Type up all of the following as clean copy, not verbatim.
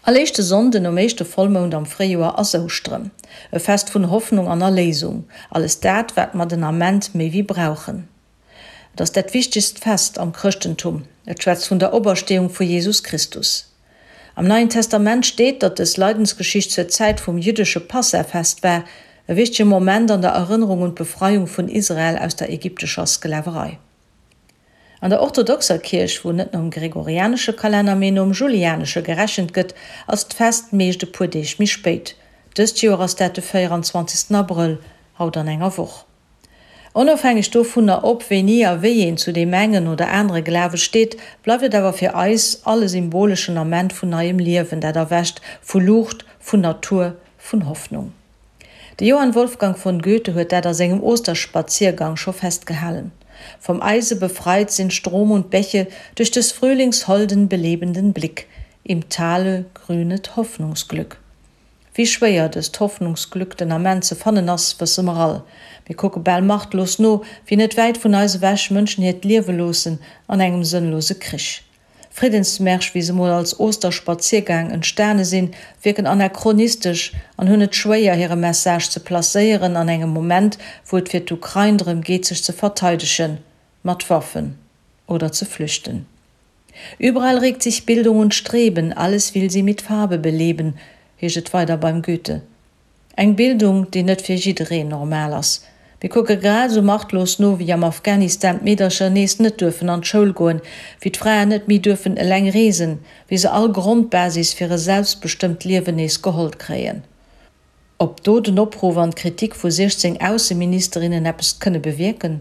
All éischte Sonnden nom éischte Vollmound am Fréijoer ass Ouschteren. E Fest vun Hoffnung an Erléisung. Alles dat, wat mer den Ament méi wéi brauchen. Et ass dat wichtegst Fest am Chrëschtentum. Et schwätzt vun der Opersteeung vu Jesus Christus. Am Neien Testament steet, datt dës Leidensgeschicht zur Zäit vum jüddesche Passahfest war, e wichtege Moment an der Erënnerung un d'Befreiung vun Israel aus der ägyptescher Sklaverei. An der orthodoxer Kierch, wou net nom gregorianesche Kalenner, mee nom julianesche gerechent gëtt, ass d'Fest meescht e puer Deeg méi spéit. Dëst Joer ass dat de 24. Abrëll, haut an enger Woch. Onofhängeg dovunner, ob, wéini a wéi een zu deem engen oder anere Glawe steet, bleift et awer fir eis all e symboleschen Ament vun neiem Liewen, dat erwächt, vu Luucht, vun Natur, vun Hoffnung. De Johann Wolfgang von Goethe huet dat a sengem Osterspaziergang scho festgehalen, Vom Eise befreit sind Strom und Bäche durch des Frühlings holden, belebenden Blick, im Tale grünet Hoffnungsglück. Wéi schwéier dëst Hoffnungsglück den Ament ze fannen ass, wësse mer all. Mir kucke bal machtlos no, wéi net wäit vun eis ewech Mënschen hiert Liewe loossen an engem sënnlose Krich. Friddensmärsch, wéi se mol als Osterspaziergang entstane sinn, wierken anachronistesch an hunn et schwéier, hire Message ze placéieren an engem Moment, wou et fir d'Ukrain drëm geet, sech ze verteidegen, mat Waffen, oder ze flüchten. Überall regt sich Bildung und Streben, alles will sie mit Farbe beleben, heescht et weider beim Goethe. Eng Bildung, déi net fir jiddereen normal ass. Mir kucke grad esou machtlos no, wéi am Afghanistan d'Meedercher nees net duerfen an d'Schoul goen, wéi d'Fraen net méi duerfen eleng reesen, wéi se all Grondbasis fir e selbstbestëmmt Liewen nees geholl kréien. Ob do den Opruff an d'Kritik vu 16 Ausseministerinnen eppes kënne bewierken?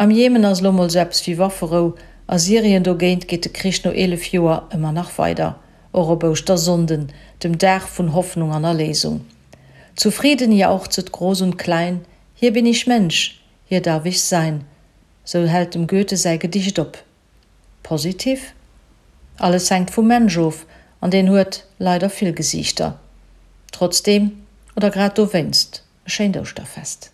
Am Jemen ass elo mol sou eppes wéi Wafferou, a Syrien dogéint geet de Krich no 11 Joer ëmmer nach weider, och op Ouschtersonnden, dem Dag vun Hoffnung an Erléisung. Zu Frieden jauchzet groß und klein, hier bin ich Mensch, hier darf ich sein, sou hält dem Goethe säi Gedicht op. Positiv? Alles hänkt vum Mensch of, an deen huet leider vill Gesiichter. Trotzdeem, oder grad dowéinst, e schéint Ouschterfest.